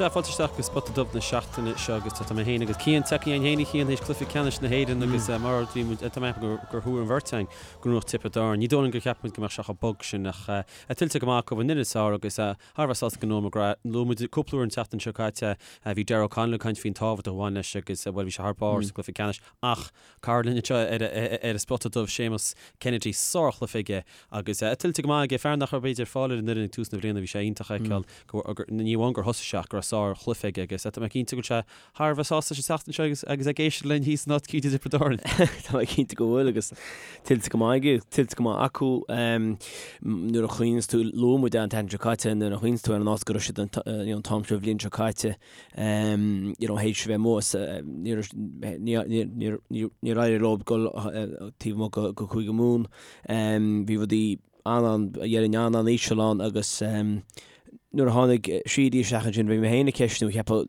Sea, fáilte isteach go Spota Dubh na seachtaine seo agus tá mé féin agus Cian tagtha againn féin a Chian théis cluiche ceannais na hÉireann agus mar bhí muid, tá mé ag ceapadh gur thuar an bheirt againn go ngnóthódh Tiobraid Árann. Ní dóigh liom gur cheap muid go mbeadh sé chomh bog sin ach tuillte go maith acu an fhoireann is fearr agus thar a bheith sásta go Noel McGrath. Luaigh muid cúpla uair an tseachtain seo caite, bhí Darragh O'Connell ag caint faoin tábhacht a bhain leis agus bhuel bhí sé thar barr sa gcluiche ceannais ach Cara linn anseo ar an Spota Dubh, Séamus Kennedy, sárchluiche aige agus tuillte go maith aige, fear nach raibh b'fhéidir fáil ar an fhoireann ag tús na bliana, bhí sé iontach a fheiceáil go, ní amháin gur thosaigh sé ach go raibh sárchluiche aige agus tá mé cinnte go bhfuil sé thar a bheith sásta sa tseachtain seo agus agus ag éisteacht linn thíos in áit eicínt i dTiobraid Árann. Tá mé cinnte go bhfuil agus tuillte go maith aige, tuillte go maith acu. Nuair a chuimhníonns tú, luaigh muid an tseachtain seo caite, nuair a chuimhníonns tú ar an áit go raibh siad an t-am seo an bhliain seo caite, you know, théis a bheith amuigh, níor éirigh leo dul taobh amuigh go Cúige Mumhan. Bhí rudaí an-an, dhéarfainn an-an-íseal ann agus nuair a tháinig Sheedy isteach ansin bhí mé féin ag ceistiú, cheapfá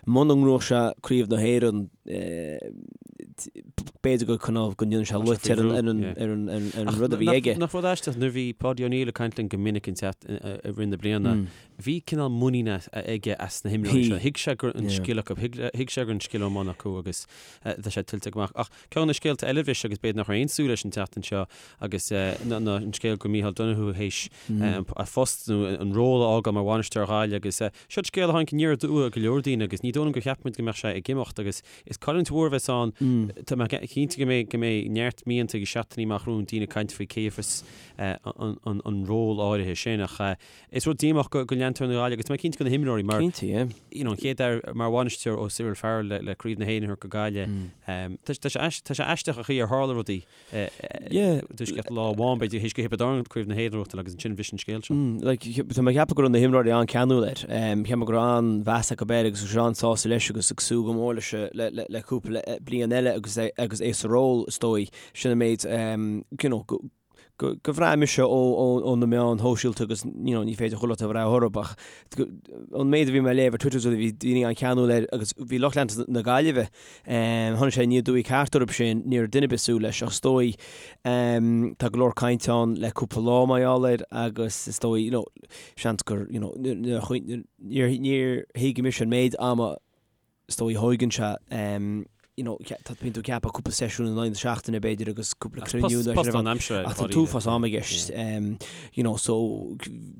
muna ngnóthódh sé Craobh na hÉireann b'fhéidir go cineál go ndéanfadh sé loit ar an rud a bhí aige. Nach rud aisteach nuair a bhí Paudie O'Neill ag caint linn go minic i rith na bliana, Bhí cineál muinín aige as na himreoirí seo. Thuig sé go raibh an scil acu, thuig sé go raibh an scil i mbun acu agus tá sé tuillte go maith. Ach ceann de na scéalta eile bhris agus b'fhéidir nach raibh aon súil leis an tseachtain seo agus ná an scéal go Micheál Donoghue théis a phost nó an ról a fhágáil mar bhainisteoir Ghaillimh agus seo scéal a tháinig aniar aduaidh ar go leor daoine agus ní dóigh liom gur cheap muid go mbeadh sé ag imeacht agus is cailliúint mhór a bheas ann. Tá mé cinnte go mbeidh go mbeidh neart mianta agus seachtainí amach romhainn daoine ag caint faoi cé a bheas an ról áirithe sin ach Is rud díomách go leantóirí na Gaillimhe agus tá mé cinnte go na himreoirí mar Cinnte, yeah. you know, an chéad fhear mar bhainisteoir ó Cyril Farrell le, le Craobh na hÉireann a thabhairt go Gaillimh. Mm. Tá, tá sé tá sé aisteach an chaoi ar tharla rudaí yeah. Tuisceacht lá amháin b'fhéidir théis go Thiobraid Árann Craobh na hÉireann a ghnóthachtáil agus ansin bhris an scéal seo. Mm, like, tá mé ag ceapadh go raibh na himreoirí an-ceanúil air. Um, cheap mé go raibh an-mheas acu air agus go raibh an-sásta leis agus ag súil go mór leis le, le, le cúpla bliain eile agus é, agus é sa ról is dóigh. Sin an méid um, you know, go, go bhraith mise ó na meáin shóisialta agus you know ní féidir chuile rud a bhraith orthu ach an méid a bhí mé ag léamh ar Twitter bhí daoine an-cheanúil air agus bhí lucht leanta na Gaillimhe tháinig sé aniar aduaidh ceart orthu sin ní raibh duine ar bith ag súil leis ach is dóigh tá go leor cainte ann le cúpla lá mar gheall air agus is dóigh you know seans gur you know níor thuig mise an méid ama is dóigh a thóigeann sé you know tá bíonn tú ag ceapadh cúpla seisiún in aghaidh na seachtaine b'fhéidir agus cúpla cruinniú nó post lánaimseartha ach tá t-uafás ama i gceist you know so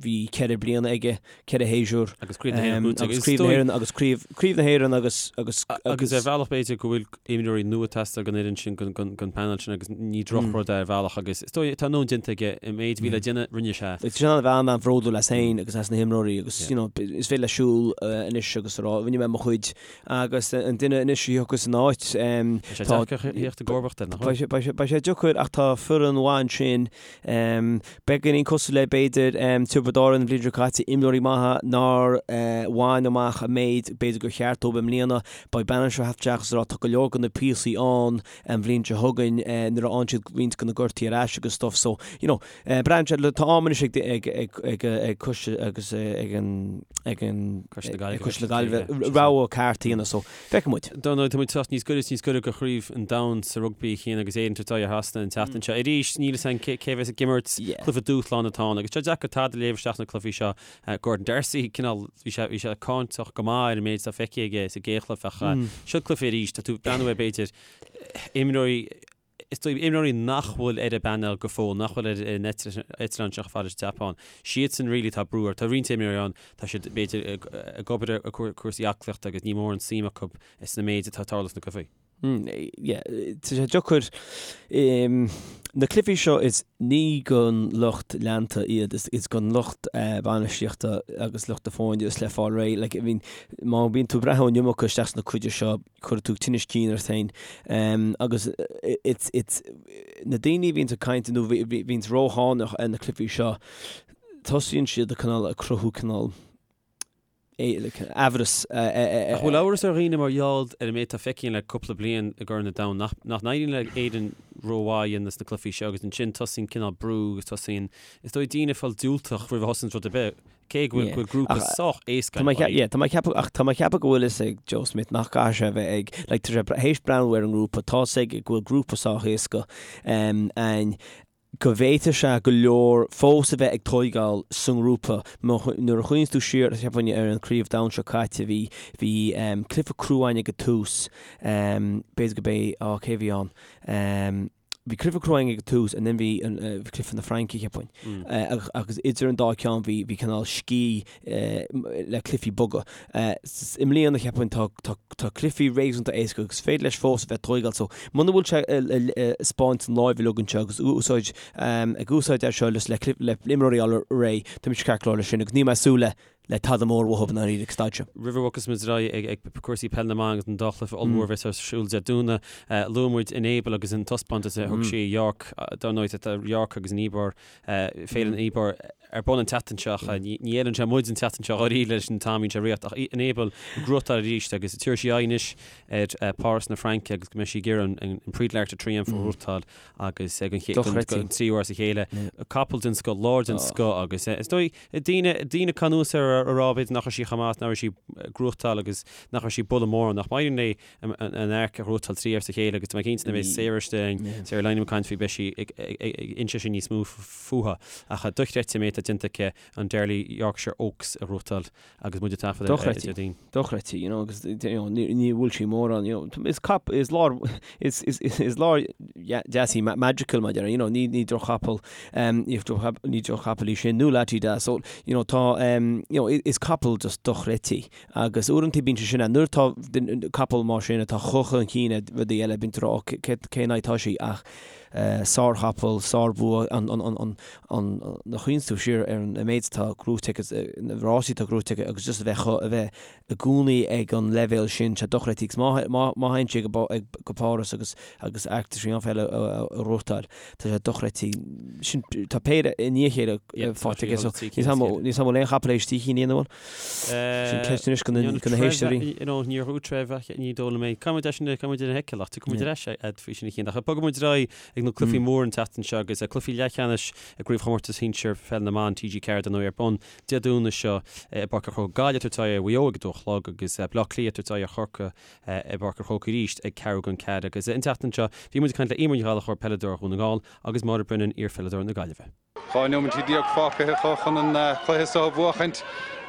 bhí 4 bliana aige 4 shéasúr agus Craobh na hÉireann buaite agus Craobh na hÉireann agus Craobh Craobh na hÉireann agus agus agus ar bhealach b'fhéidir go bhfuil imreoirí nua ag teastáil don fhoireann sin don panel sin agus ní drochrud é ar bhealach agus is dóigh tá a ndóthain déanta aige an méid a bhí le déanamh rinne sé. Tá sé in ann a bheith an-bhródúil as féin agus as na himreoirí agus you know is féidir leis siúl anois agus a rá rinne mé mo chuid agus an duine anois a thiocfas ina áit Beidh sé deacair a theacht i gcomharbacht air, nach bhfuil? Beidh sé deacair ach tá foireann mhaith ansin. Beagáinín cosúil le b'fhéidir Tiobraid Árann an bhliain seo caite, imreoirí maithe nár bhain amach an méid b'fhéidir gur cheart dóibh i mbliana. Beidh bainisteoir ag teacht isteach agus a rá tá go leor de na píosaí ann an bhliain seo chugainn nuair a fhaigheann siad roinnt de na gortuithe ar ais agus stuff so you know Braitheann sé, tá am anois ag ag ag ag ag coiste agus ag an ag an Coiste na Gaillimhe. ag Coiste na Gaillimhe rogha ceart a dhéanamh so feicfidh muid. Dar ndóigh, tá muid teacht níos gaire is níos gaire do Chraobh an Domhain sa rugbaí a Chian agus Éire ag tabhairt aghaidh ar Shasana an tseachtain seo. Arís, níl a fhios againn cé cé bheas ag imirt, Yeah. cluiche dúshláin atá ann agus tá sé deacair tada a léamh isteach sna cluichí seo. Gordon D'Arcy, cineál, bhí sé bhí sé cáinteach go maith ar an méid atá feicthe aige sa gcéad chluiche ach seo cluiche arís, tá tú ag breathnú ar b'fhéidir imreoirí Is dóigh, imreoirí nach bhfuil ar an bpainéal go fóill, nach bhfuil ar an eitleán seo chomh fada leis an tSeapáin, siadsan really atá brú orthu. Tá roinnt imreoirí ann, tá siad b'fhéidir ag obair ar chúrsaí aclaíochta agus ní mórán suim acu sna méid atá ag tarlú sna cluichí. Yeah, tá sé deacair. Na cluichí seo is ní don lucht leanta iad, is don lucht bainistíochta agus lucht na foirne is le fáil réidh. Like, I mean, má bhíonn tú ag breathnú an iomarca isteach sna cluichí seo, cuirfidh tú tinneas cinn ort féin agus it's it's na daoine a bhíonns ag caint nó bhíonns rófhánach ar na cluichí seo tosaíonn siad ag cineál ag cruthú cineál aimhreas. Ach bhfuil amhras ar dhaoine mar gheall ar an méid atá feicthe le cúpla bliain i gCorn an Domhain nach nach n-éiríonn le Éirinn rómhaith a dhéanamh sna cluichí seo agus ansin tosaíonn cineál brú agus tosaíonn is dóigh daoine ag fáil diúltach roimh a thosaíonn rud ar bith. Cé go bhfuil grúpa sách éasca ann. Yeah, tá mé ag ceapadh, ach tá mé ag ceapadh go bhfuil fhios ag Joe Schmidt nach gcaithfidh sé a bheith ag, like, tá sé théis breathnú ar an ngrúpa, tá fhios aige go bhfuil grúpa sách éasca ann. go bhféadfadh sé go leor fós a bheith ag tóigeáil sa ngrúpa. Nuair a chuimhníonns tú siar, cheapfainn, ar an Craobh Domhain seo caite, bhí, bhí cluiche crua againn ag an tús, b'fhéidir go b'é, á, cé a bhí ann? Bhí cluiche crua againn ag an tús and then bhí an, bhí cluiche na Fraince, cheapfainn. Agus idir an dá ceann bhí, bhí cineál scíth le cluichí boga. I mbliana, cheapfainn, tá, tá, tá cluichí réasúnta éasca agus is féidir leis fós a bheith ag tóigeáil so muna bhfuil sé ag 'spáint an láimh uilig anseo agus úsáid, ag úsáid é seo le le imreoirí a fháil réidh, tá mise ceart go leor leis sin agus níl mé ag súil le le tada mór uathu i ndáiríre ag staid seo. Roimh a bhogfas muid ar aghaidh ag cúrsaí peil na mban agus an dá chluiche ollmhór a bheas ar siúl Dé Domhnaigh, luaigh muid Enable agus an taispeántas a thug sí i York, dar ndóigh tá York agus an Ebor, Féile an Ebor ar bun an tseachtain seo ach ní fheileann sé muid an tseachtain seo dháiríre leis an t-am a bhíonn sé ag rith ach Enable ag gnóthachtáil arís agus tabharfaidh sí aghaidh anois ar Páras na Fraince agus go mbeidh sí ag iarraidh an Prix de l'Arc de Triomphe a ghnóthachtáil agus ag an don tríú huair as a chéile. Capall den scoth, láir den scoth agus is dóigh daoine daoine ag cur anuas air a rá b'fhéidir nach raibh sí chomh maith, nach raibh sí ag gnóthachtáil agus nach raibh sí ag bualadh mórán ach má éiríonn léi an Arc a ghnóthachtáil trí huaire as a chéile agus tá mé cinnte nuair a bheidh Sarah istigh, Sarah Lynam ag caint faoi beidh sí ag inse sin níos mó fúithi. Ach dochreidte an méid atá déanta aici an Darley Yorkshire Oaks a ghnóthachtáil agus muid ag taifead ar Déardaoin. Dochreidte, you know, agus you know, ní bhfuil sí mórán, you know, is cap, is láir, is, is, is láir deas í Magical, mar you know, ní, ní droch-chapall, um, ní droch-chapall í sin, nó Lah Ti Dah, so, you know, tá, um, you know, is capall just dochreidte. Agus uaireanta bíonn sé sin ann. Nuair atá capall mar sin atá chomh chun cinn ar rudaí eile, bíonn tú ag rá, ó, cén aghaidh atá sí? Ach sárchapall, sárbhua, an, an, an, an, an, nuair a chuimhníonns tú siar ar an méid atá gnóite aici, na rásaí atá gnóite aici agus just a bheith chomh, a bheith i gcónaí ag an leibhéal sin, tá sé dochreidte. Agus má, má, má théann sí go, go Páras agus, agus Arc de Triomphe eile a ghnóthachtáil, tá sé dochreidte. Sin, tá péire i ndiaidh a chéile faighte aici, so níl 's agam an bhfuil aon chapall théis trí cinn a dhéanamh, an bhfuil? Sin ceist anois go na héisteoirí. Níor dhúirt Trev ach ní dóigh liom é. Caithfidh muid é sin, caithfidh muid é a sheiceáil ach tiocfaidh muid ar ais agat faoi sin a Chian. Ach bogfaidh muid ar aghaidh ag na cluichí móra an tseachtain seo agus cluichí leathcheannais i gCraobhchomórtas Shinsir Pheil na mBan TG4 dar ndóigh ar bun Dé Domhnaigh seo i bPáirc an Chrócaigh. Gaillimh ag tabhairt aghaidh ar Mhaigh Eo ag a dó a chlog agus Baile Átha Cliath ag tabhairt aghaidh ar Chorcaigh i bPáirc an Chrócaigh arís ag ceathrú don ceathair. Agus an tseachtain seo bhí muid ag caint le Eimear Ní Ghallchóir, peileadóir Dhún na nGall agus Máire Brennan, iarpheileadóir na Gaillimhe. 12 nóimintí fágtha acu chun an cluiche seo a bhuachaint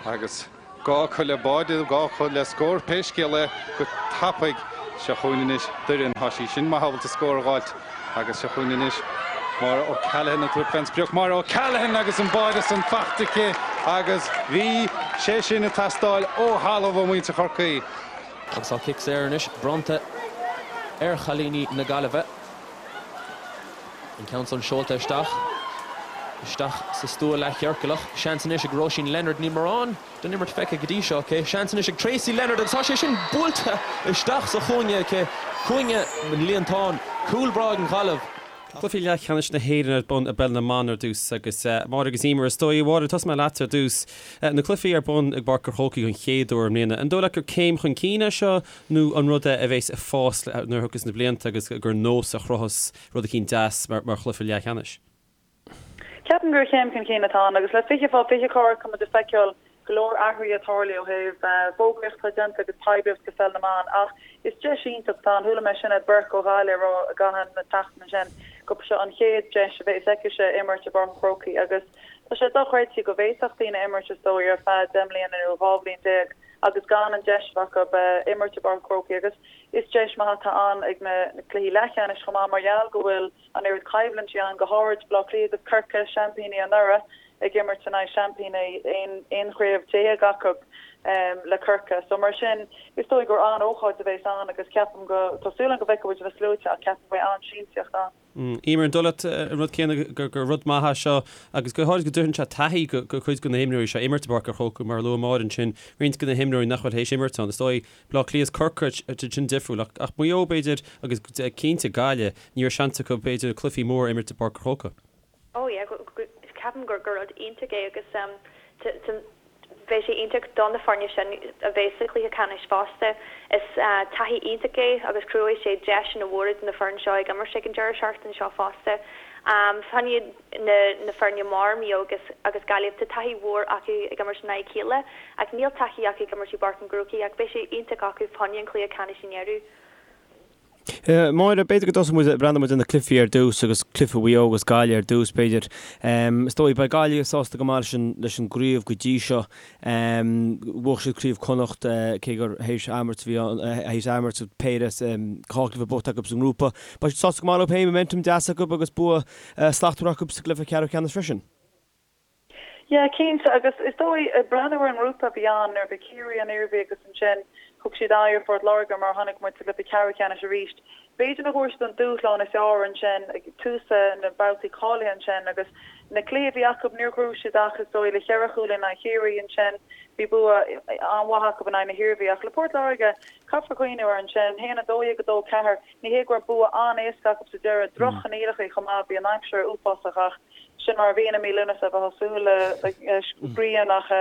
agus gá acu le báide, gá acu le scór. Pé scéal é, go tapaidh. Seo chugainn anois Doireann. Tá sí sin maith ábalta scór a dh'fháilt agus seo chugainn anois Máire O'Callaghan ag tabhairt fén sprioc. Máire O'Callaghan agus an báide san faighte aici agus bhí sé sin ag teastáil ó thalamh ó mhuintir Chorcaí. Agus tá cic saor anois bronnta ar chailíní na Gaillimhe. An ceann san seolta isteach. Isteach sa stua leathchiorclach. Seans anois ag Róisín Leonard. Níl mórán den imirt feicthe go dtí seo aici. Seans anois ag Tracey Leonard agus tá sé sin buailte isteach sa chúinne aici. Cúinne an líontáin. Cúl breá ag an Ghaillimh. Cluichí leathcheannais na hÉireann ar bun i bPeil na mBan ar dtús agus Máire agus Eimear, is dóigh. A Mháire, tosóidh mé leat ar dtús. Na cluichí ar bun i bPáirc an Chrócaigh don chéad uair i mbliana. An dóigh leat gur céim chun cinn é seo Nó an rud é a bheas ag fás nuair a thiocfas na blianta agus gur nós a chruthós rud eicínt deas mar chluiche leathcheannais? Ceapaim gur chéim chun cinn atá ann agus le 20 fá 20 corr tá muid ag feiceáil go leor athruithe ag tarlú ó thaobh fógraíocht atá déanta agus poiblíocht do pheil na mban ach is deis iontach atá ann. Chuala mé Sinéad Burke ó Ghaillimh ag rá i gcaitheamh na seachtaine sin gurb seo an chéad deis a bheas aicise imirt i bPáirc an Chrócaigh agus tá sé dochreidte go bhféadfadh daoine imirt is dóigh ar feadh 10 mbliana nó 12 bhliain agus gan an deis a bheith acu imirt i bPáirc an Chrócaigh agus is deis maith atá ann ag na cluichí leathcheannais chomh maith mar gheall go bhfuil an oiread coimhlintí ann, go háirid Baile Átha Cliath agus Corcaigh, seaimpíní anuraidh ag imirt in aghaidh seaimpíní 11 chraobh acu le Corcaigh. So mar sin is dóigh gur an-ócáid a bheas ann agus ceapaim go, tá súil agam go bhfeicfidh muid na sluaite ach ceapaim go mbeidh an-siamsaíocht ann. Eimear, an dóigh leat an rud céanna gur rud maith é seo agus go háirid go dtabharfaidh sé taithí go cuid de na himreoirí seo imirt i bPáirc an Chrócaigh mar a luaigh Máire ansin, roinnt de na himreoirí nach bhfuil théis imirt ann. Is dóigh Baile Átha Cliath is Corcaigh sin difriúil ach ach Maigh Eo b'fhéidir agus cinnte Gaillimh ní raibh seans acu b'fhéidir cluichí móra a imirt i bPáirc an Chrócaigh. Oh yeah, ceapaim gur rud iontach é agus Bheadh sé iontach do na foirne sin a bheith sa chluiche ceannais fosta. Is taithí iontach é agus cruthóidh sé deiseanna mhóra do na foirne seo ag imirt ag an deireadh seachtaine seo fosta. Fá choinne na foirne mar Maigh Eo agus Gaillimh, tá taithí mhór acu ag imirt in aghaidh a chéile ach níl taithí acu ag imirt i bPáirc an Chrócaigh ach beidh sé iontach acu fá choinne an chluiche ceannais i ndeireadh. Máire, b'fhéidir go dtosóidh muid, breathnóidh muid ar na cluichí ar dtús agus cluiche Mhaigh Eo agus Gaillimh ar dtús b'fhéidir. Is dóigh, beidh Gaillimh sásta go maith leis an, leis an gcraobh go dtí seo. Bhuaigh siad Craobh Chonnacht cé gur théis athimirt a bhí ann, théis athimirt péire, dhá chluiche buachta acu sa ngrúpa. Beidh siad sásta go maith leo féin, momentum deas acu agus bua slachtmhar acu sa gcluiche ceathrú ceannais freisin. Yeah, cinnte, agus is dóigh, ag breathnú ar an ngrúpa a bhí ann, nuair a bhí Ciarraí, an Iarmhí agus ansin thug siad aghaidh ar Phort Láirge mar a chonaic muid sa gcluiche ceathrú ceannais arís. B'fhéidir nach bhfuair siad an dúshlán is fearr ansin ag tús na mbabhtaí cáilithe ansin agus na cluichí a bhí acu níor ghnóthaigh siad ach is dóigh le cheithre chúl in aghaidh Chiarraí ansin bhí bua an-mhaith acu in aghaidh na hIarmhí ach le Port Láirge caithfear cuimhneamh air ansin, 1, 12, 2, 4. Ní hé go raibh bua an-éasca acu sa deireadh, droch-choinníollacha chomh maith, bhí an aimsir uafásach ach sin mar a bhíonn i mí Lúnasa, bheifeá ag súil le grian ach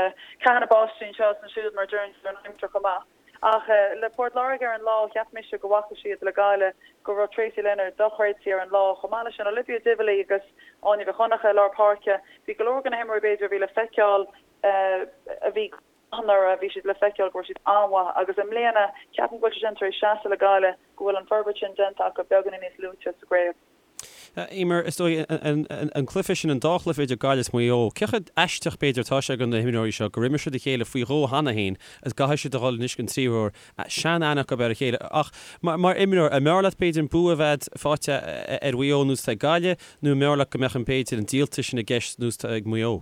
ceathanna báistí anseo is ansiúd mar a deireann siad ar an aimsir chomh maith. Ach le Port Láirge ar an lá, cheap mise go bhfaca siad le Gaillimh go raibh Tracey Leonard dochreidte ar an lá, chomh maith leis sin Olivia Divilly agus Áine Mhic Dhonncha i lár páirce. Bhí go leor de na himreoirí b'fhéidir a bhí le feiceáil a bhí go maith anuraidh, bhí siad le feiceáil go raibh siad an-mhaith agus i mbliana ceapaim go bhfuil sé sin tar éis seasamh le Gaillimh, go bhfuil an forbairt sin déanta acu beagáinín níos luaite sa gcraobh. Eimear, is dóigh, an cluiche sin, an dá chluiche idir Gaillimh is Maigh Eo, cé chomh aisteach b'fhéidir atá sé do na himreoirí seo gur imir siad a chéile faoi dhó cheana féin agus go gcaithfidh siad a dhul anois don tríú huair, sean-aithne acu ar a chéile. Ach mar imreoir, an mb'fhearr leat b'fhéidir an bua a bheith faighte ar Mhaigh Eo ar nós atá ag Gaillimh nó an mb'fhearr leat go mbeadh an b'fhéidir an díoltas sin i gceist ar nós atá ag Maigh Eo?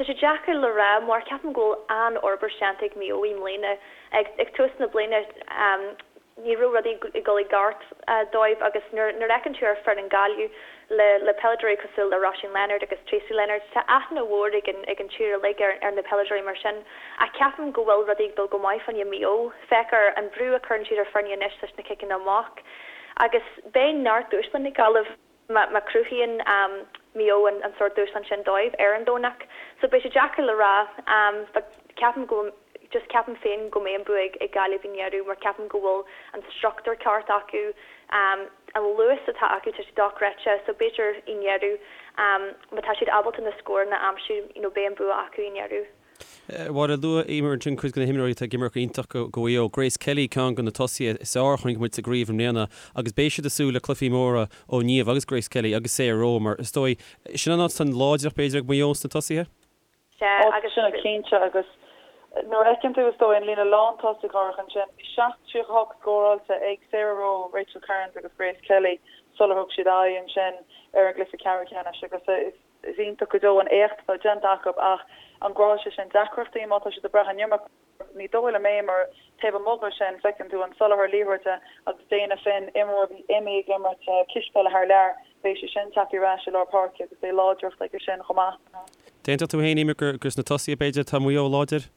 Tá sé deacair le rá mar ceapaim go bhfuil an-fhorbairt déanta ag Maigh Eo i mbliana. Ag tús na bliana ní raibh rudaí ag dul i gceart dóibh agus nuair a fheiceann tú ar foireann Gaillimh le le peileadóirí cosúil le Róisín Leonard agus Tracey Leonard, tá aithne mhór ag an ag an tír uilig ar ar na peileadóirí mar sin. Ach ceapaim go bhfuil rudaí ag dul go maith fá choinne Maigh Eo. Féach ar an brú a chuireann siad ar foirne anois leis na ciceanna amach agus beidh neart dúshláin ag Gaillimh. má chruthaíonn Maigh Eo an sórt dúshlán sin dóibh ar an Domhnach. So beidh sé deacair le rá but ceapaim go just ceapaim féin go mbeidh an bua ag Gaillimh i ndeireadh mar ceapaim go bhfuil an struchtúr ceart acu, an luas atá acu tá sé dochreidte so b'fhéidir i ndeireadh má tá siad ábalta na scóranna a aimsiú you know beidh an bua acu i ndeireadh. Mháire, luaigh Eimear ansin cuid de na himreoirí atá ag imirt go iontach do Mhaigh Eo. Grace Kelly, ceann de na tosaithe is fearr a chonaic muid sa gcraobh i mbliana agus beidh siad ag súil le cluichí móra ó Niamh agus Grace Kelly agus Sarah Rowe mar is dóigh, sin an áit atá an láidreacht b'fhéidir ag Maigh Eo sna tosaithe? Sea, agus. Sin cinnte agus nuair a fheiceann tú is dóigh an líne lántosaigh áirithe ansin, bhí 7.38 scóráilte ag Sarah Rowe, Rachel Kearns agus Grace Kelly sular thug siad aghaidh ansin ar an gcluiche ceathrú ceannais agus is Is iontach go deo an éacht atá déanta acu ach an gcruthóidh sé sin deacrachtaí má tá siad ag brath an iomarca? Ní dóigh liom é mar taobh amuigh de sin feiceann tú an soláthar liathróide agus Dana Finn, imreoir a bhí imithe ag imirt cispheile thar lear, beidh sí sin tagtha ar ais i lár páirce agus beidh láidreacht aige sin chomh maith. D'aontódh tú féin, Eimear, gur sna tosaithe b'fhéidir atá Maigh Eo láidir?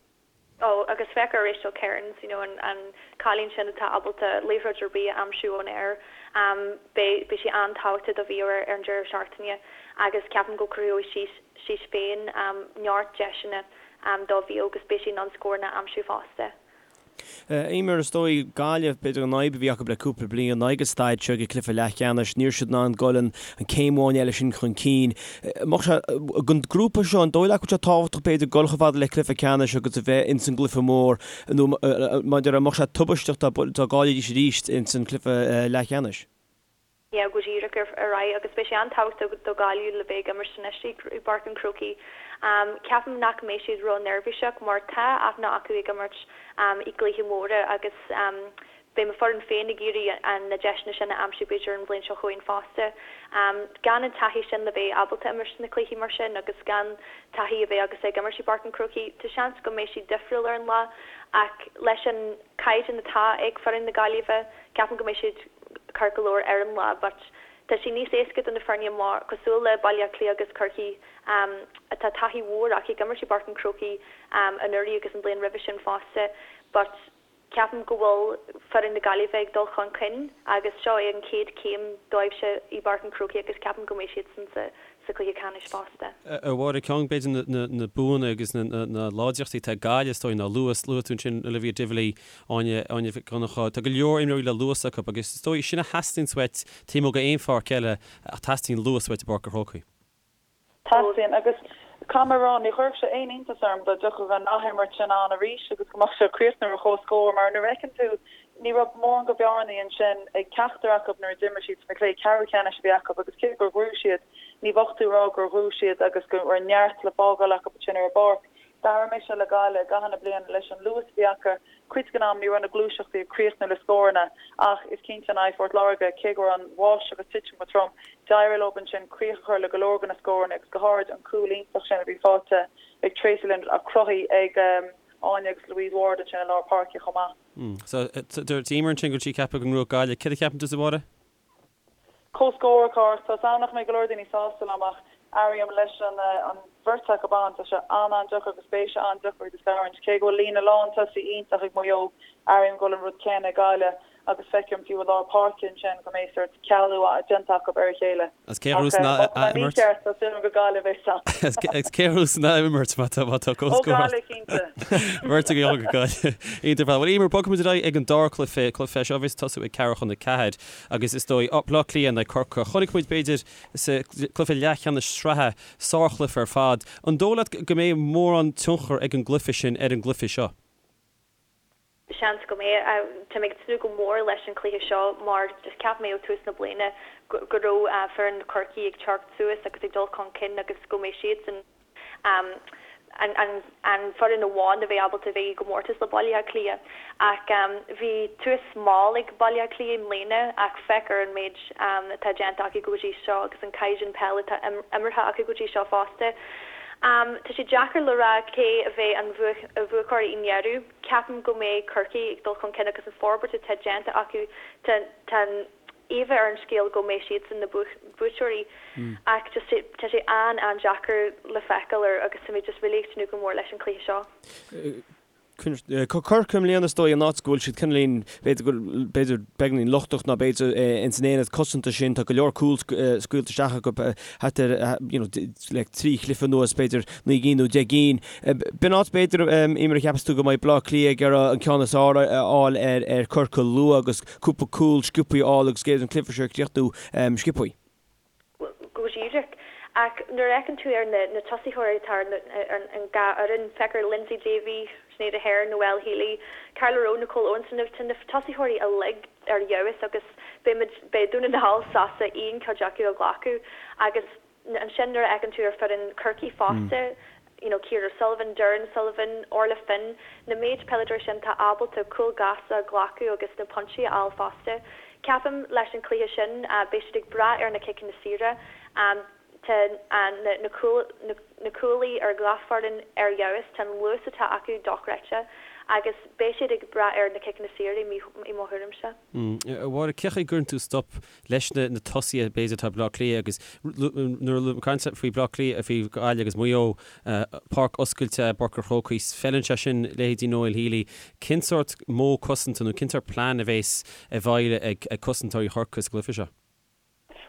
Oh, agus féach ar Rachel Kearns, you know, an, an cailín sin atá ábalta liathróid ar bith a aimsiú ón aer. Um, beidh, beidh sí an-tábhachtach do Mhaigh Eo ar, ar an deireadh seachtaine agus ceapaim go cruthóidh sí, sí féin um, neart deiseanna um, do Mhaigh Eo agus beidh sí in ann scóranna a aimsiú fosta. Eimear, is dóigh, Gaillimh, b'fhéidir an fhadhb a bhí acu le cúpla bliain ná ag an staid seo ag an cluiche leathcheannais, ní raibh siad in ann dul an céim amháin eile sin chun cinn. Mbeadh sé, don grúpa seo, an dóigh leat go bhfuil sé tábhachtach b'fhéidir dul chomh fada le cluiche ceannais agus a bheith ins an gcluiche mór nó mar a déarfá, an mbeadh sé tubaisteach dá gcaillfidís arís ins an cluiche leathcheannais? yeah go díreach ar aghaidh agus beidh sé an-tábhachtach do Ghaillimh le bheith ag imirt anois i bPáirc an Chrócaigh. Ceapaim nach mbeidh siad ró-neirbhíseach mar tá aithne acu ag imirt i gcluichí móra agus beidh mo foireann féin ag iarraidh na deiseanna sin a aimsiú b'fhéidir an bhliain seo chugainn fosta. Gan an taithí sin le bheith ábalta imirt sna cluichí mar sin agus gan taithí a bheith agat ag imirt i bPáirc an Chrócaigh, tá seans go mbeidh siad difriúil ar an lá ach leis an caighdeán atá ag foireann na Gaillimhe, ceapaim go mbeidh siad ceart go leor ar an lá but tá sé níos éasca do na foirne mar, cosúil le Baile Átha Cliath agus Corcaigh atá taithí mhór acu ag imirt i bPáirc an Chrócaigh anuraidh agus an bhliain roimhe sin fosta but ceapaim go bhfuil foireann na Gaillimhe ag dul chun cinn agus seo é an chéad chéim dóibhse i bPáirc an Chrócaigh agus ceapaim go mbeidh siadsan sa sa chluiche ceannais fosta. A Mháire, ceann b'fhéidir na buanna agus na láidreachtaí atá ag Gaillimh is dóigh ná luas. Luaigh tú ansin Olivia Divilly, Áine, Áine Mhic Dhonncha. Tá go leor imreoirí le luas acu agus is dóigh sin a theastaíonns uait taobh amuigh d'aon pháirc eile ach teastaíonn luas uait i bPáirc an Chrócaigh. Teastaíonn agus. Caithfidh mé a rá, ní chuirfeadh sé aon iontas orm dá dtiocfadh an athimirt sin ann arís agus go mbeadh sé ag críochnú ar chomhscór mar nuair a fheiceann tú, ní raibh mórán go bhearnaí ansin ag ceachtar acu nuair a d'imir siad sna cluichí ceathrú ceannais a bhí acu agus cé gur ghnóthaigh siad, ní bheadh tú ag rá gur ghnóthaigh siad agus go raibh neart le fágáil acu ansin ar an bpáirc. D'airigh mise le Gaillimh i gcaitheamh na bliana leis an luas a bhí acu, cuid den am ní raibh na gluaiseachtaí ag críochnú le scóranna ach is cinnte in aghaidh Phort Láirge, cé go raibh an bháisteach ag titim go trom, d'éirigh leo ansin críoch a chur le go leor de na scóranna agus go háirid an cúl iontach sin a bhí faighte ag Tracey Lynn ach cruthaithe ag Áine agus Louise Ward ansin i lár páirce chomh maith. So, dúirt Emer ansin go bhfuil sí ag ceapadh go ngnóthóidh Gaillimh. Céard a cheapann tusa, a Mháire? Comhscór, a Chárthaigh. Tá 's a'm nach mbeidh go leor daoine sásta liom ach airím leis an an bheirt acu ann, tá sé an-an-deacair agus beidh sé an-deacair iad a scarúint. Cé go bhfuil líne lán tosaí iontach ag Maigh Eo, airím go bhfuil an rud céanna ag Gaillimh agus feicim fiú i lár páirce ansin go mbeidh sórt cealú déanta acu ar a chéile. Agus cé a ghnóthós an Ach má tá mé mícheart, tá súil agam gur Gaillimh é san. Agus cé a ghnóthós an athimirt má tá má tá Ó comhscór? Gaillimh cinnte. Beirt ag dul go Gaillimh. Iontach ar fad. Bhuel Emer, bogfaimid ar aghaidh ag an dara cluiche, cluiche seo a bheas ag tosú ag ceathrú chun a ceathair. Agus is dóigh, Baile Átha Cliath in aghaidh Corcaigh. Chonaic muid, b'fhéidir, sa gcluiche leathcheannais sraithe, sárchluiche ar fad. An dóigh leat go mbeidh mórán tionchar ag an gcluiche sin ar an gcluiche seo? Seans go mbeidh. Tá mé ag tnúth go mór leis an chluiche seo mar just cheap mé ó tús na bliana go raibh foireann Chorcaí ag teacht suas agus ag dul chun cinn agus go mbeidh siadsan an foireann amháin a bheidh ábalta a bheith i gcomórtas le Baile Átha Cliath. Ach bhí tús mall ag Baile Átha Cliath i mbliana ach féach ar an méid atá déanta acu go dtí seo agus an caighdeán peile atá imeartha acu go dtí seo fosta. Tá sé deacair le rá cé a bheidh an bhuaiteoir i ndeireadh. Ceapaim go mbeidh Corcaigh ag dul chun cinn agus an forbairt atá déanta acu tá an íomha ar an scéal go mbeidh siadsan na buaiteoirí ach just tá sé an-an-deacair le feiceáil ar agus tá mé just really ag tnúth go mór leis an cluiche seo. Corcaigh i mbliana is dóigh an áit go bhfuil siad cineáilín b'fhéidir go b'fhéidir beagáinín lochtach ná b'fhéidir ins an aonad cosanta sin tá go leor cúl scaoilte isteach acu thart ar you know le trí chluiche anuas b'fhéidir 9 gcinn nó 10 gcinn. B'in áit b'fhéidir Emer a cheapas tú go mbeidh Bleá Cliath ag iarraidh an ceann is fearr a fháil ar ar Corcaigh luath agus cúpla cúl sciobthaí a fháil agus b'fhéidir an cluiche seo a chríochnú sciobthaí. Go díreach. Ach nuair a fheiceann tú ar na tosaitheoirí atá ar an dhá fhoireann, féach ar Lyndsey Davey, Sinéad Aherne, Noelle Healy, Carla Rowe, Nicole Owens, tá na tosaitheoirí uilig ar fheabhas agus beidh Dún na nGall sásta aon chuid acu a ghlacadh agus Ansin nuair a fheiceann tú ar foireann Chorcaí fosta, you know Ciara O'Sullivan, Doireann Sullivan, Orla Finn, na méid peileadóirí sin atá ábalta cúil gasta a ghlacadh agus na pointí a fháil fosta. Ceapaim leis an chluiche sin beidh siad ag brath ar na ciceanna saora. Tá na na cúlaí ar gach foireann ar fheabhas, tá an luas atá acu dochreidte agus beidh siad ag brath ar na ciceanna saora i mo thuairimse. A Mháire, cén chaoi a gcuireann tú stop leis na tosaithe b'fhéidir atá ag Bleá Cliath agus nuair a caint faoi Bleá Cliath, faoi Ghaillimh agus Maigh Eo, páirc oscailte i bPáirc an Chrócaigh, feileann sé sin leithéidí Noelle Healy. Cén sórt modh cosanta nó cén sórt plean a bhéas i bhfeighil ag cosantóirí Chorcaí sa gcluiche seo?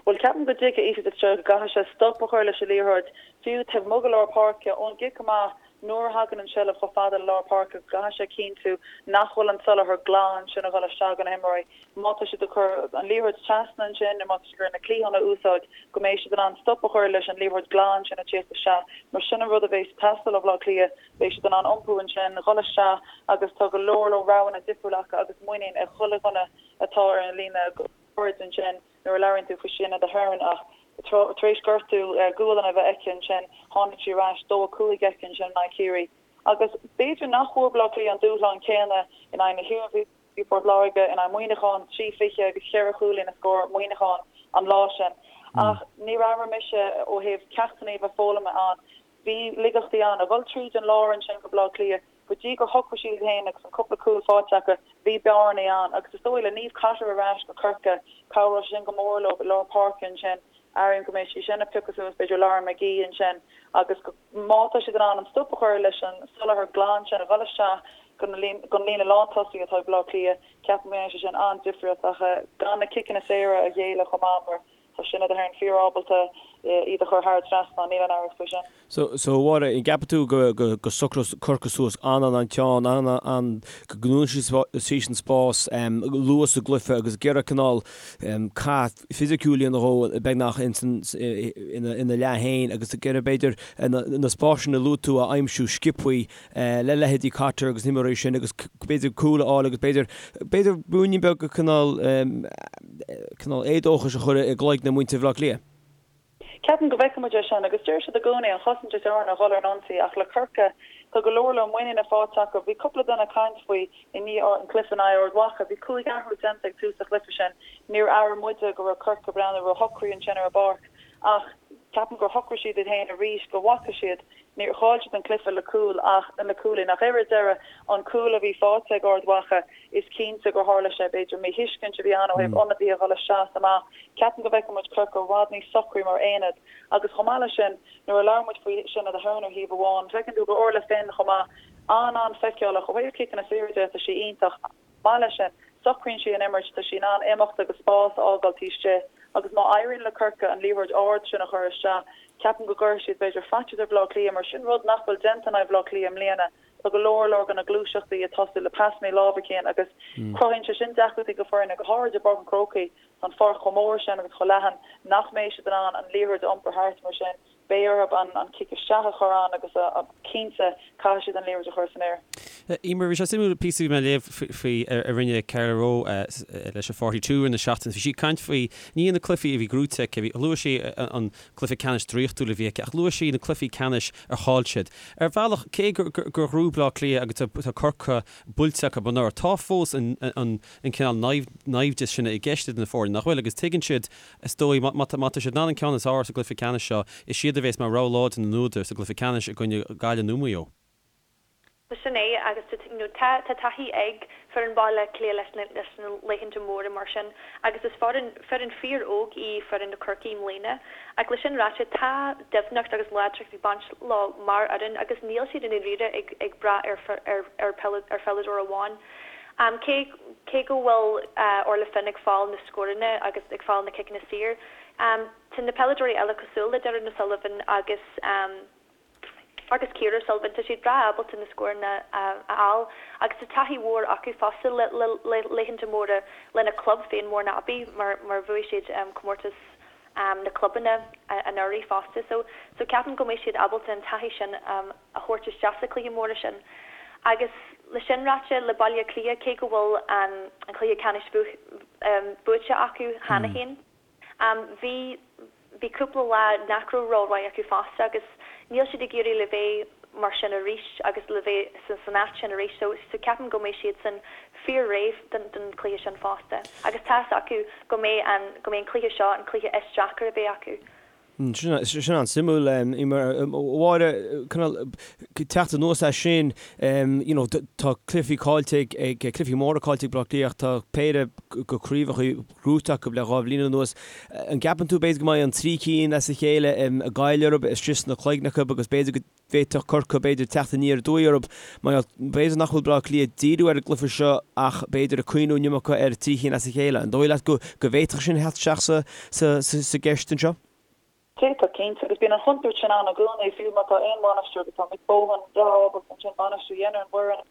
Bhuel, ceapaim go dtuigfidh Ephie Fitzgerald go gcaithfidh sé stop a chur leis an liathróid, fiú taobh amuigh de lár páirce, ón gcic amach, nuair a thagann an tseilbh chomh fada le lár páirce, go gcaithfidh sé cinntiú nach bhfuil an soláthar glan sin ag dul isteach do na himreoirí. Má tá siad ag cur an liathróid trasna ansin nó má tá siad ag iarraidh na cliatháin a úsáid, go mbeidh siad in ann stop a chur leis an liathróid glan sin ag tíocht isteach, mar sin an rud a bheas ag teastáil ó Bhaile Átha Cliath, beidh siad in ann iompú ansin, dhul isteach agus tá go leor leor roghanna difriúla acu agus muinín ag chuile dhuine atá ar an líne. ard ansin nuair a labhraíonn tú faoi Sinéad Aherne ach tar éis gortú gualainne a bheith aici ansin, tháinig sí ar ais, 2, 5 aici ansin in aghaidh Chiarraí. Agus b'fhéidir nach bhfuair Baile Átha Cliath an dúshlán céanna in aghaidh na hIarmhí, Port Láirge, in aghaidh Muineacháin, 3, 20 agus cheithre chúilín a scór Muineachán an lá sin. Ach níor airigh mise ó thaobh ceachtanna a bheith foghlamtha ann, bhí laigeachtaí ann. A dhul tríd an lár ansin go Baile Átha Cliath, Go dtí gur shocraigh siad iad féin agus an cúpla cúl faighte acu, bhí bearnaí ann agus is dóigh le Niamh Cotter ar ais go Corcaigh, cabhróidh sé sin go mór leo i lár páirce ansin. Airím go mbeidh sí sin ag piocadh suas b'fhéidir Lauren McGee ansin agus go, má tá siad in ann an stop a chur leis an soláthar glan sin a dhul isteach don líne lántosaí atá ag Baile Átha Cliath, ceapaim go ndéanfaidh sé sin an-difríocht ach gan na ciceanna saora a ghéilleadh chomh maith mar. Tá Sinéad Aherne fíor-ábalta iad a chur thar an trasnán, níl aon amhras faoi sin. So, so a Mháire, an gceapann tú go, go, go socróidh Corcaigh suas an-an-an-teann, an-an, go ndúnfaidh siad an spás luath sa gcluiche agus ag iarraidh cineál cath fisiciúil a dhéanamh dhó beagnach ins an, ina, ina leath féin agus ag iarraidh b'fhéidir na, na spásanna a luaigh tú a aimsiú sciobthaí le leithéidí Cotter agus na himreoirí sin agus b'fhéidir cúl a fháil agus b'fhéidir, b'fhéidir ruainnín beag de cineál, cineál éadóchais a chur i gcloigne muintir Bhaile Átha Cliath. Ceapaim go bhfeicfidh muid é sin agus deir siad i gcónaí an chosaint is fearr ná dhul ar an ionsaí ach le Corcaigh tá go leor leor muiníne faighte acu. Bhí cúpla duine ag caint faoi i ndiaidh an cluiche in aghaidh Ard Mhacha. Bhí cúig athrú déanta ag tús an chluiche sin. Níor airigh muide go raibh Corcaigh ag breathnú róshocraí ansin ar an bpáirc ach ceapaim gur shocraigh siad iad féin arís go bhfaca siad Níor chaill siad an cluiche le cúl ach le cúilín ach ar deireadh an cúl a bhí faighte ag Ard Mhacha is cinnte gur tharla sé, b'fhéidir míthuiscint a bhí ann ó thaobh ionadaithe a dhul isteach is amach. Ceapaim go bhfeicfidh muid Corcaigh i bhfad níos socraí mar aonad agus chomh maith leis sin nuair a labhair muid faoi Sinéad Aherne ar thaobh amháin, feiceann tú gur Orla Finn chomh maith an-an-fheiceálach ó thaobh ciceanna saora de tá sí iontach. maith leis sin, socraíonn sí an imirt, tá sí in ann imeacht agus spás a fhágáil taobh istigh agus má éiríonn le Corcaigh an liathróid ard sin a chur isteach, ceapaim go gcuirfidh siad b'fhéidir faitíos ar Bhaile Átha Cliath mar sin rud nach bhfuil déanta in aghaidh Bhaile Átha Cliath i mbliana. Tá go leor leor de na gluaiseachtaí ag tosú le pasanna láimhe Cian agus cruthaíonn sé sin deacrachtaí do foirne, go háirid i bPáirc an Chrócaigh. Tá an pháirc chomh mór sin agus chomh leathan nach mbeidh siad in ann an liathróid a iompar thart mar sin. Beidh orthu an cic isteach a chur ann agus cinnte caithfidh siad an liathróid a chur san aer. Emer, bhí sé suimiúil píosa a bhí mé a léamh faoi a rinne Carla Rowe leis an 42 i rith na seachtaine. Bhí sí ag caint faoi, ní na cluichí a bhí gnóite aici, bhí, luaigh sí an cluiche ceannais draíochtúil a bhí aici ach luaigh sí na cluichí ceannais ar chaill siad. Ar bhealach, cé gur ghnóthaigh Bleá Cliath agus tá Corcaigh buailte acu anuraidh, tá fós an cineál naimhdeas sin i gceist idir na foirne, nach bhfuil? Agus tuigeann siad Is dóigh, má tá siad in ann an ceann is fearr sa gcluiche ceannais seo, is iad a bhéas mar rogha láidir na n-údar sa gcluiche ceannais i gcoinne Gaillimh nó Maigh Eo. Sin é, agus tá tá taithí ag foireann Bhaile Átha Cliath leis na leis na laethanta móra mar sin agus is foireann foireann fíor-óg í foireann na Corcaí i mbliana. Ach le sin ráite, tá doimhneacht agus láidreacht ag baint leo mar fhoireann agus níl siad i ndáiríre ag ag brath ar ar ar ar pheileadóir amháin. Cé cé go bhfuil Orla Finn ag fáil na scóranna agus ag fáil na ciceanna saor, tá na peileadóirí eile cosúil le Doireann O'Sullivan agus agus Ciara O'Sullivan, tá siad breá ábalta na scóranna a fháil agus tá taithí mhór acu fosta le le laethanta móra lena club féin Mourneabbey mar mar bhuaigh siad comórtas na clubanna anuraidh fosta. So so ceapaim go mbeidh siad ábalta an taithí sin a thabhairt isteach sa chluiche mór sin. Agus le sin ráite, le Baile Átha Cliath, cé go bhfuil an cluiche ceannais buaite acu cheana féin, bhí bhí cúpla lá nach raibh rómhaith acu fosta agus níl siad ag iarraidh le bheith mar sin arís agus le bheith san áit sin arís so so ceapaim go mbeidh siadsan fíor réidh don don chluiche sin fosta. Agus tá fhios acu go mbeidh an go mbeidh an cluiche seo an cluiche is deacair a bheidh acu. Sin an-suimiúil. A Mháire, cineál teacht anuas as sin, you know, tá cluichí caillte ag, cluichí móra caillte ag Baile Átha Cliath ach tá péire de chraobhacha gnóite acu le dhá bhliain anuas. An gceapann tú b'fhéidir go mbeidh an trí cinn as a chéile ag goil orthu istigh sna cloigne acu agus b'fhéidir go bhféadfadh Corcaigh b'fhéidir teacht aniar aduaidh orthu mar b'fhéidir nach bhfuil Baile Átha Cliath ag díriú ar an gcluiche seo ach b'fhéidir ag cuimhniú an iomarca ar trí chinn as a chéile. An dóigh leat go bhféadfadh sin theacht isteach sa gceist anseo? D'fhéadfadh, cinnte, agus bíonn an chontúirt sin ann i gcónaí, fiú má tá aon bhainisteoir agus tá Mick Bohan breá ábalta ansin bainistiú a dhéanamh ar an bhfoireann.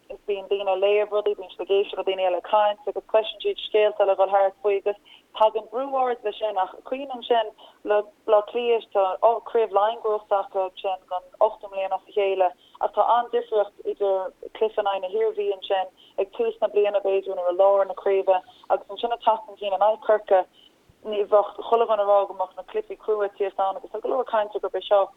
Is bíonn daoine ag léamh rudaí, bíonn siad ag éisteacht le daoine eile ag caint agus cloiseann siad scéalta le dhul thart faoi agus tagann brú ard leis sin ach cuimhnigh ansin le Baile Átha Cliath, tá Craobh Laighean gnóite acu ansin don ochtú mbliain as a chéile ach tá an-difríocht idir cluiche in aghaidh na hIarmhí ansin ag tús na bliana b'fhéidir nó i lár na craoibhe agus ansin ag teacht chun cinn in aghaidh Corcaigh. Ní bheadh chuile dhuine ag rá go mbeadh na cluichí crua ag tíocht ann agus tá go leor cainte gurb é seo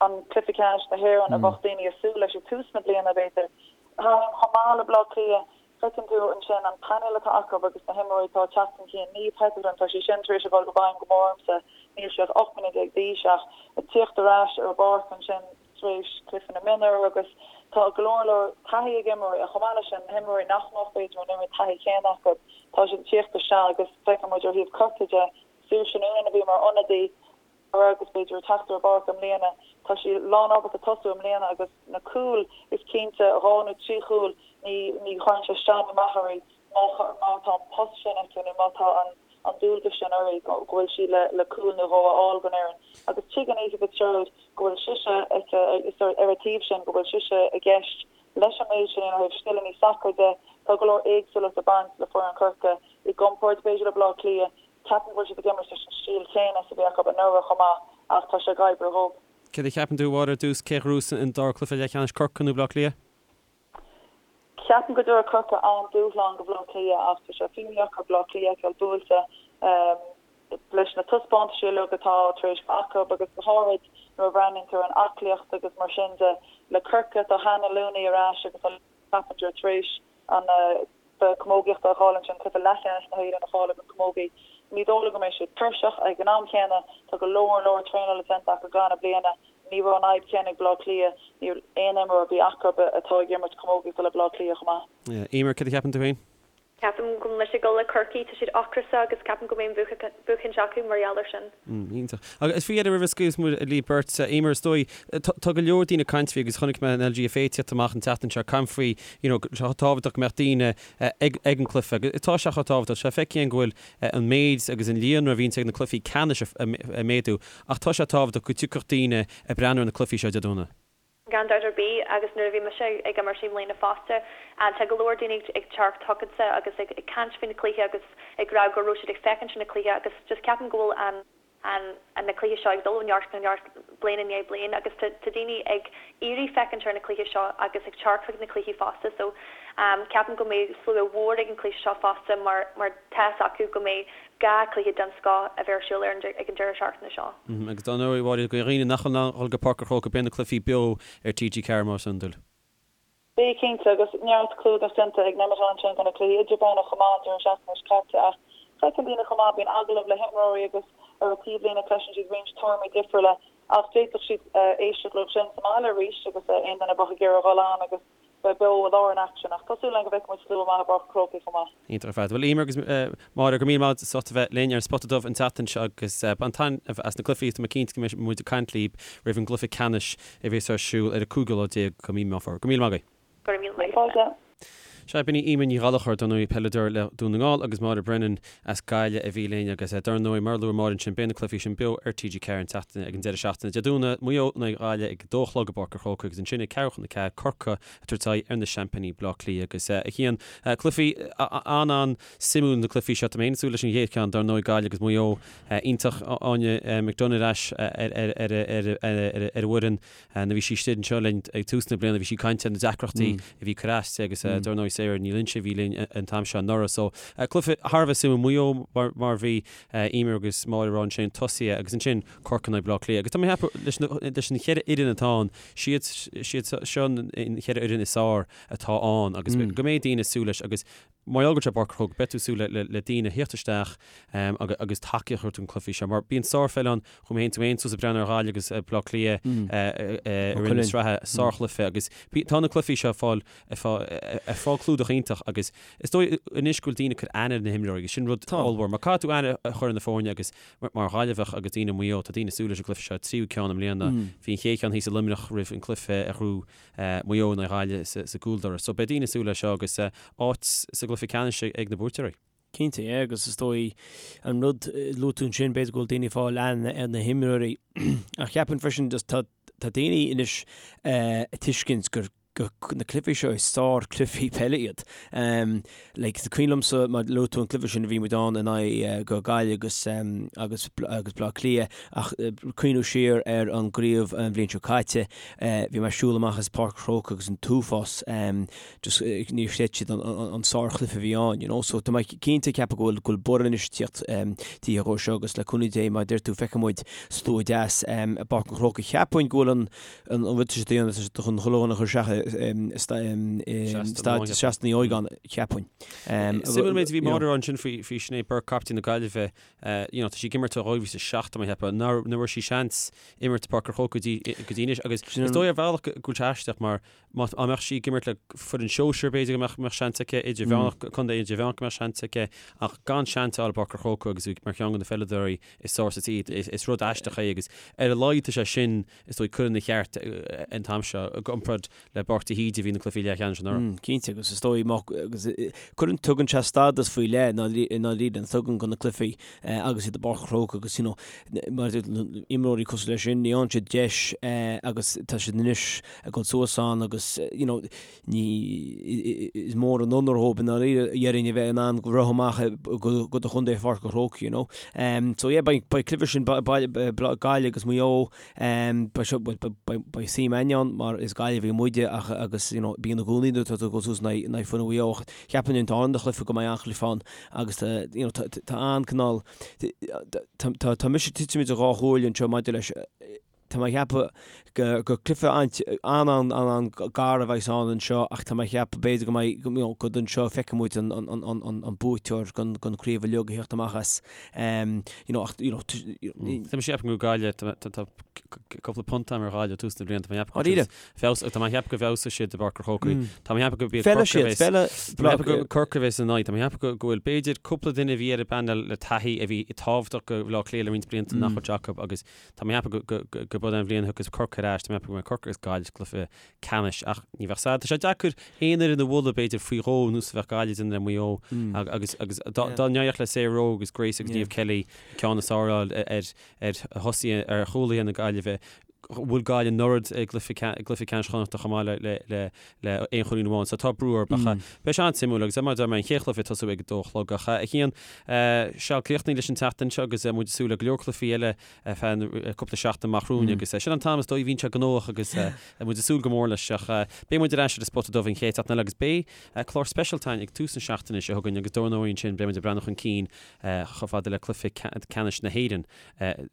an cluiche ceannais na hÉireann a bheadh daoine ag súil leis ag tús na bliana, b'fhéidir. Chomh maith le Baile Átha Cliath, feiceann tú ansin an painéal atá acu agus na himreoirí atá ag teacht chun cinn. Niamh Hetherton, tá sí sin tar éis a dhul i bhfeidhm go mór ormsa. Níl sí ach 18 mbliana d'aois ach ag tíocht ar ais ar an bpáirc ansin tar éis cluiche na mionúr agus tá go leor leor taithí ag imreoirí ach chomh maith leis sin, na himreoirí nach mbeadh b'fhéidir an oiread taithí chéanna acu, tá siad ag tíocht isteach agus feiceann muid ó thaobh Corcaigh de, Saoirse Noonan a bhí mar ionadaí anuraidh agus b'fhéidir ag teacht ar an bpáirc i mbliana. Tá sí lán ábalta tosú i mbliana agus na cúil, is cinnte, dhá nó trí chúl, ní ní chuireann sé isteach nó amach uirthi má má tá an post sin aici nó má tá an. an dualgas sin uirthi, go bhfuil sí le cúl nó dhó a fháil don fhoireann. Agus tuigeann Aoife Fitzgerald go bhfuil sise ar a taobh sin, go bhfuil sise i gceist leis an méid sin ó thaobh scileanna sacair de. Tá go leor éagsúlacht ag baint le foireann Chorcaí i gcomparáid b'fhéidir le Baile Átha Cliath. Ceapaim go bhfuil siad ag imirt leis an stíl chéanna is a bhí acu anuraidh chomh maith ach tá sé ag oibriú dhóibh. Céard a cheapann tú, a Mháire, ar dtús, cé a ghnóthós an dara cluiche leathcheannais, Corcaigh nó Baile Átha Cliath? Ceapaim go dtabharfaidh Corcaigh an-dúshlán do Bhaile Átha Cliath ach tá sé fíordheacair Baile Átha Cliath a fheiceáil buailte leis na taispeántaisí uilig atá tar éis bheith acu agus go háirid nuair a bhreathnaíonn tú ar an aclaíocht agus mar sin de. Le Corcaigh tá Hannah Looney ar ais agus tá Coppinger tar éis an cluiche camógaíochta a fháil ansin, cluiche leathcheannais na hÉireann a fháil don chamógaí. Ní dóigh liom go mbeidh siad tuirseach. Ag an am chéanna, tá go leor leor traenála déanta acu i gcaitheamh na bliana. Ní raibh an fhadhb chéanna ag Baile Átha Cliath. Níl aon imreoir ar bith acu atá ag imirt camógaíochta le Baile Átha Cliath chomh maith. Eimear, céard a cheapann tú féin? Ceapaim go bhfuil mise ag dul le Corcaigh, tá siad ocrasach agus ceapaim go mbeidh an buachaint acu mar gheall ar sin. Iontach. Agus faoi dheireadh roimh a scaoilfeas muid libh beirt, Eimear, is dóigh, tá go leor daoine ag caint faoi agus chonaic mé an LGFA ag tíocht amach an tseachtain seo ag caint faoi you know go tábhachtach go mbeadh daoine ag ag an cluiche agus tá sé chomh tábhachtach. Tá sé feicthe againn go bhfuil an méid agus an líonra a bhíonns ag na cluichí ceannais ag méadú ach tá sé tábhachtach go dtiocfadh daoine ag breathnú ar na cluichí seo Dé Domhnaigh. Gan dabht ar bith, agus nuair a bhí mise ag imirt i mbliana fosta, tá go leor daoine ag teacht chugatsa agus ag caint faoin chluiche agus ag rá go raibh siad ag féachaint ar na cluiche agus just ceapaim go bhfuil an an na cluiche seo ag dul ó neart go neart bliain i ndiaidh bliain agus tá tá daoine ag iarraidh féachaint ar na cluiche seo agus ag teacht chuig na cluichí fosta so ceapaim go mbeidh slua mhór ag an cluiche seo fosta mar mar tá fhios acu go mbeidh 2 cluiche den scoth a bheith ar siúl ar an ag an deireadh seachtaine seo. Agus dar ndóigh, a Mháire, do dhaoine nach bhfuil in ann dhul go Páirc an Chrócaigh, beidh na cluichí beo ar TG4 mar is iondúil. Beidh cinnte, agus neart clúdach déanta ag Nemeton ansin do na cluichí idirmheánach chomh maith an deireadh seachtaine seo caite ach feiceann daoine chomh maith, bíonn agallamh le himreoirí agus ar an taobhlíne cloiseann siad roinnt tuairimí difriúla ach d'fhéadfadh siad éisteacht leo sin sa mbaile arís agus aon duine a bheadh ag iarraidh dhul ann agus bheith beo i lár an aicsin ach tá súil againn go bhfeicfidh muid slua maith i bPáirc an Chrócaigh chomh maith. Iontach ar fad. Bhuel, Eimear agus Máire, go raibh míle maith as ucht a bheith linn ar an Spota Dubh an tseachtain seo agus bain taitneamh as na cluichí. Tá mé cinnte go mbeidh muid ag caint libh roimh an gcluiche ceannais a bheas ar siúl ar an 15 lá de mhí Meán Fómhair. Go raibh míle maith agaibh. Go raibh míle maith agat. Sea, b'in í Eimear Ní Ghallchóir, dar ndóigh, peileadóir le Dún na nGall agus Máire Brennan as Gaillimh a bhí linn agus dar ndóigh, mar a luaigh Máire ansin, beidh na cluichí sin beo ar TG4 an tseachtain, ag an deireadh seachtaine. Dé Domhnaigh, Maigh Eo in aghaidh Ghaillimh ag a dó a chlog i bPáirc an Chrócaigh agus ansin ag ceathrú chun a 4, Corcaigh ag tabhairt aghaidh ar na seaimpíní Bleá Cliath agus a Chian, cluichí an-an-suimiúil na cluichí seo. Tá mé féin ag súil leis an gcéad cheann, dar ndóigh, Gaillimh agus Maigh Eo. Iontach Áine McDonagh ar ais ar an bhfoireann. Nuair a bhí sí istigh anseo linn ag tús na bliana bhí sí ag caint ar na deacrachtaí a bhí ag cur as di agus dar ndóigh Sarah Ní Loinsigh a bhí linn an t-am seo anuraidh. So cluiche thar a bheith suimiúil, Maigh Eo mar a bhí Eimear agus Máire ag rá ansin tosaithe agus ansin Corcaigh in aghaidh Bleá Cliath. Agus tá mé ag ceapadh leis na leis an cheithre fhoireann atá ann, siad siad seo an cheithre fhoireann is fearr atá ann agus go mbeidh daoine ag súil leis agus Mar gheall go bhfuil sé i bPáirc an Chrócaigh, beidh tú ag súil le daoine a thíocht isteach agus tacaíocht a thabhairt don cluichí seo. Mar bíonn sárpheil ann, chuaigh mé féin tú féin suas ag breathnú ar Ghaillimh agus Bleá Cliath i rith na sraithe, sárchluiche agus tá na cluichí seo ag fáil ag fáil clúdach iontach agus is dóigh anois go bhfuil daoine ag cur aithne ar na himreoirí agus sin rud ollmhór. Mar caithfidh tú aithne a chur ar na foirne agus mar Ghaillimheach agus daoine i Maigh Eo, tá daoine ag súil leis an gcluiche seo, tríú ceann i mbliana. Bhí an chéad cheann thíos i Luimneach roimh an cluiche a ghnóthaigh Maigh Eo in aghaidh Ghaillimh sa gcúldoras. So beidh daoine ag súil leis seo agus áit sa gcluiche ceannais ag na buaiteoirí. Cinnte, yeah, agus is dóigh an rud a luaigh tú ansin, b'fhéidir go bhfuil daoine ag fáil aithne ar na himreoirí ach cheapfainn freisin just tá tá daoine anois ag tuiscint gur gur na cluichí seo is sár-chluichí peile iad. Like, is cuimhin liomsa mar luaigh tú an cluiche sin a bhí muid ann in aghaidh go Gaillimh agus agus agus Bleá Cliath ach cuimhniú siar ar an gcraobh an bhliain seo caite Bhí mé ag siúl amach as Páirc an Chrócaigh agus an t-uafás just níor chreid siad an sárchluiche a bhí ann, you know. So tá mé cinnte ag ceapadh go bhfuil go bhfuil borradh anois ag tíocht taobh dhó seo agus le cúnamh Dé mar a deir tú feicfidh muid slua deas i bPáirc an Chrócaigh. Cheapfainn go bhfuil an an rud atá siad a dhéanamh tá siad chun chuile dhuine a chur isteach i staid Seastán Uí Óigeáin cheapfainn. Suimiúil an méid a bhí Máire a rá ansin faoi faoi Sinéad Burke, captaen na Gaillimhe. You know, tá sí ag imirt ó 2007 tá mé ag ceapadh, nach bhfuair sí seans imirt i bPáirc an Chrócaigh go dtí go dtí anois agus is dóigh ar bhealach go bhfuil sé aisteach mar má dá mbeadh sí ag imirt le foireann sóisir b'fhéidir go mbeadh mbeadh seans aici idirmheánach contae idirmheánach go mbeadh seans aici ach gan seans a fháil i bPáirc an Chrócaigh agus í mar cheann de na peileadóirí is fearr sa tír is is rud aisteach é agus ar a laghad tá sé sin is dóigh curtha ina cheart an t-am seo i gcomparáid le Burke. Páirc de hÍde a bhí na cluichí leathcheannais anuraidh. Cinnte, agus is dóigh má, agus cuireann, tugann sé stádas faoi leith i ndáiríre, tugann do na cluichí agus iad i bPáirc an Chrócaigh agus you know, mar imreoirí cosúil leis sin, ní fhaigheann siad deis agus tá siad anois ag dul suas ann agus you know, ní, is mór an onóir dhóibh i ndáiríre déarfainn a bheith in ann rith amach go do chontae Pháirc an Chrócaigh, you know. So yeah, beidh, beidh cluiche sin, Gaillimh agus Maigh Eo, Beidh seo, beidh suim againn ann mar is Gaillimhigh muide ach agus you know bíonn i gcónaí nuair atá tú ag dul suas in aghaidh foireann Mhaigh Eo ach cheapfainn an dara chluiche go mbeidh an-chluiche ann agus tá you know tá an-cineál tá tá mise tite idir dhá chomhairle anseo maidir leis tá mé ag ceapadh gur cluiche an-an-an-an-gar a bheas ann anseo ach tá mé ag ceapadh b'fhéidir go mbeidh you know go anseo feicfidh muid an an an an an buaiteoir den den chraobh uilig a theacht amach as. You know, ach, you know, Tá mé ag ceapadh go Gaillimh, tá cúpla punt agam ar Ghaillimh tús na bliana, tá mé ag ceapadh go feabhas, tá mé ag ceapadh go bhfeabhsóidh siad i bPáirc an Chrócaigh. Tá mé ag ceapadh go b'iad Corcaigh a bheas, tá mé ag ceapadh go Corcaigh a bheas ina n-aghaidh, tá mé ag ceapadh go bhfuil b'fhéidir cúpla duine a bhí ar an bpainéal le taithí a bhí tábhachtach do Bhaile Átha Cliath le roinnt blianta nach bhfuil acu agus tá mé ag ceapadh go go b'in an bhliain a thiocfas Corcaigh ar ais, tá mé ag ceapadh go mbeidh Corcaigh agus Gaillimh sa gcluiche ceannais ach ní bheadh sad. Tá sé deacair aon fhoireann a mholadh b'fhéidir faoi dhó nós a bheadh Gaillimh ag déanamh le Maigh Eo agus agus dá n-éireodh le Sarah Rowe agus Grace agus Niamh Kelly ceann is fearr a fháil ar ar thosaithe ar chúlaithe na Gaillimhe bhuail Gaillimh anuraidh i gcluiche gcluiche ceannais Chonnachta chomh maith le le le le aon chúilín amháin so tá brú orthu ach beidh sé an-suimiúil agus mar a deir mé an chéad chluiche ag tosú ag a dó a chlog ach a Chian seal críochnaithe leis an tseachtain seo agus muid ag súil le go leor cluichí eile ar feadh cúpla seachtain amach romhainn agus sin an t-am is dóigh a bhíonn sé gnóthach agus muid ag súil go mór leis ach beidh muid ar ais ar an Spota Dubh an chéad seachtain eile agus beidh clár speisialta againn ag tús na seachtaine seo chugainn agus dar ndóigh ansin beidh muid ag breathnú chun cinn chomh fada le cluiche ceannais na hÉireann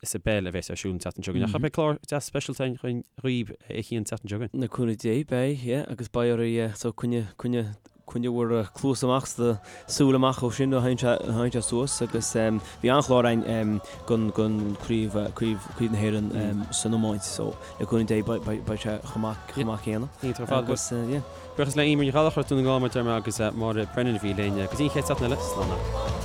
sa bpeil a bheas ar siúl an tseachtain seo chugainn ach beidh clár deas speisialta againn dhaoibh a Chian an tseachtain seo chugainn. Le cúnamh Dé beidh, yeah, agus beidh oraibh so coinne, coinne Coinnigh bhur cluas amach 's do súil amach ó sin a thagann sé suas agus bhí an-chlár againn gon gon craobh craobh craobh na hÉireann san iomáint so le cúnamh Dé beidh sé chomh maith chomh maith céanna. Iontach ar fad. Agus yeah. Buíochas le Eimear Ní Ghallchóir as Dún na nGall mar a deir mé agus Máire Brennan a bhí linn. Go dtí an chéad seachtain eile, slán.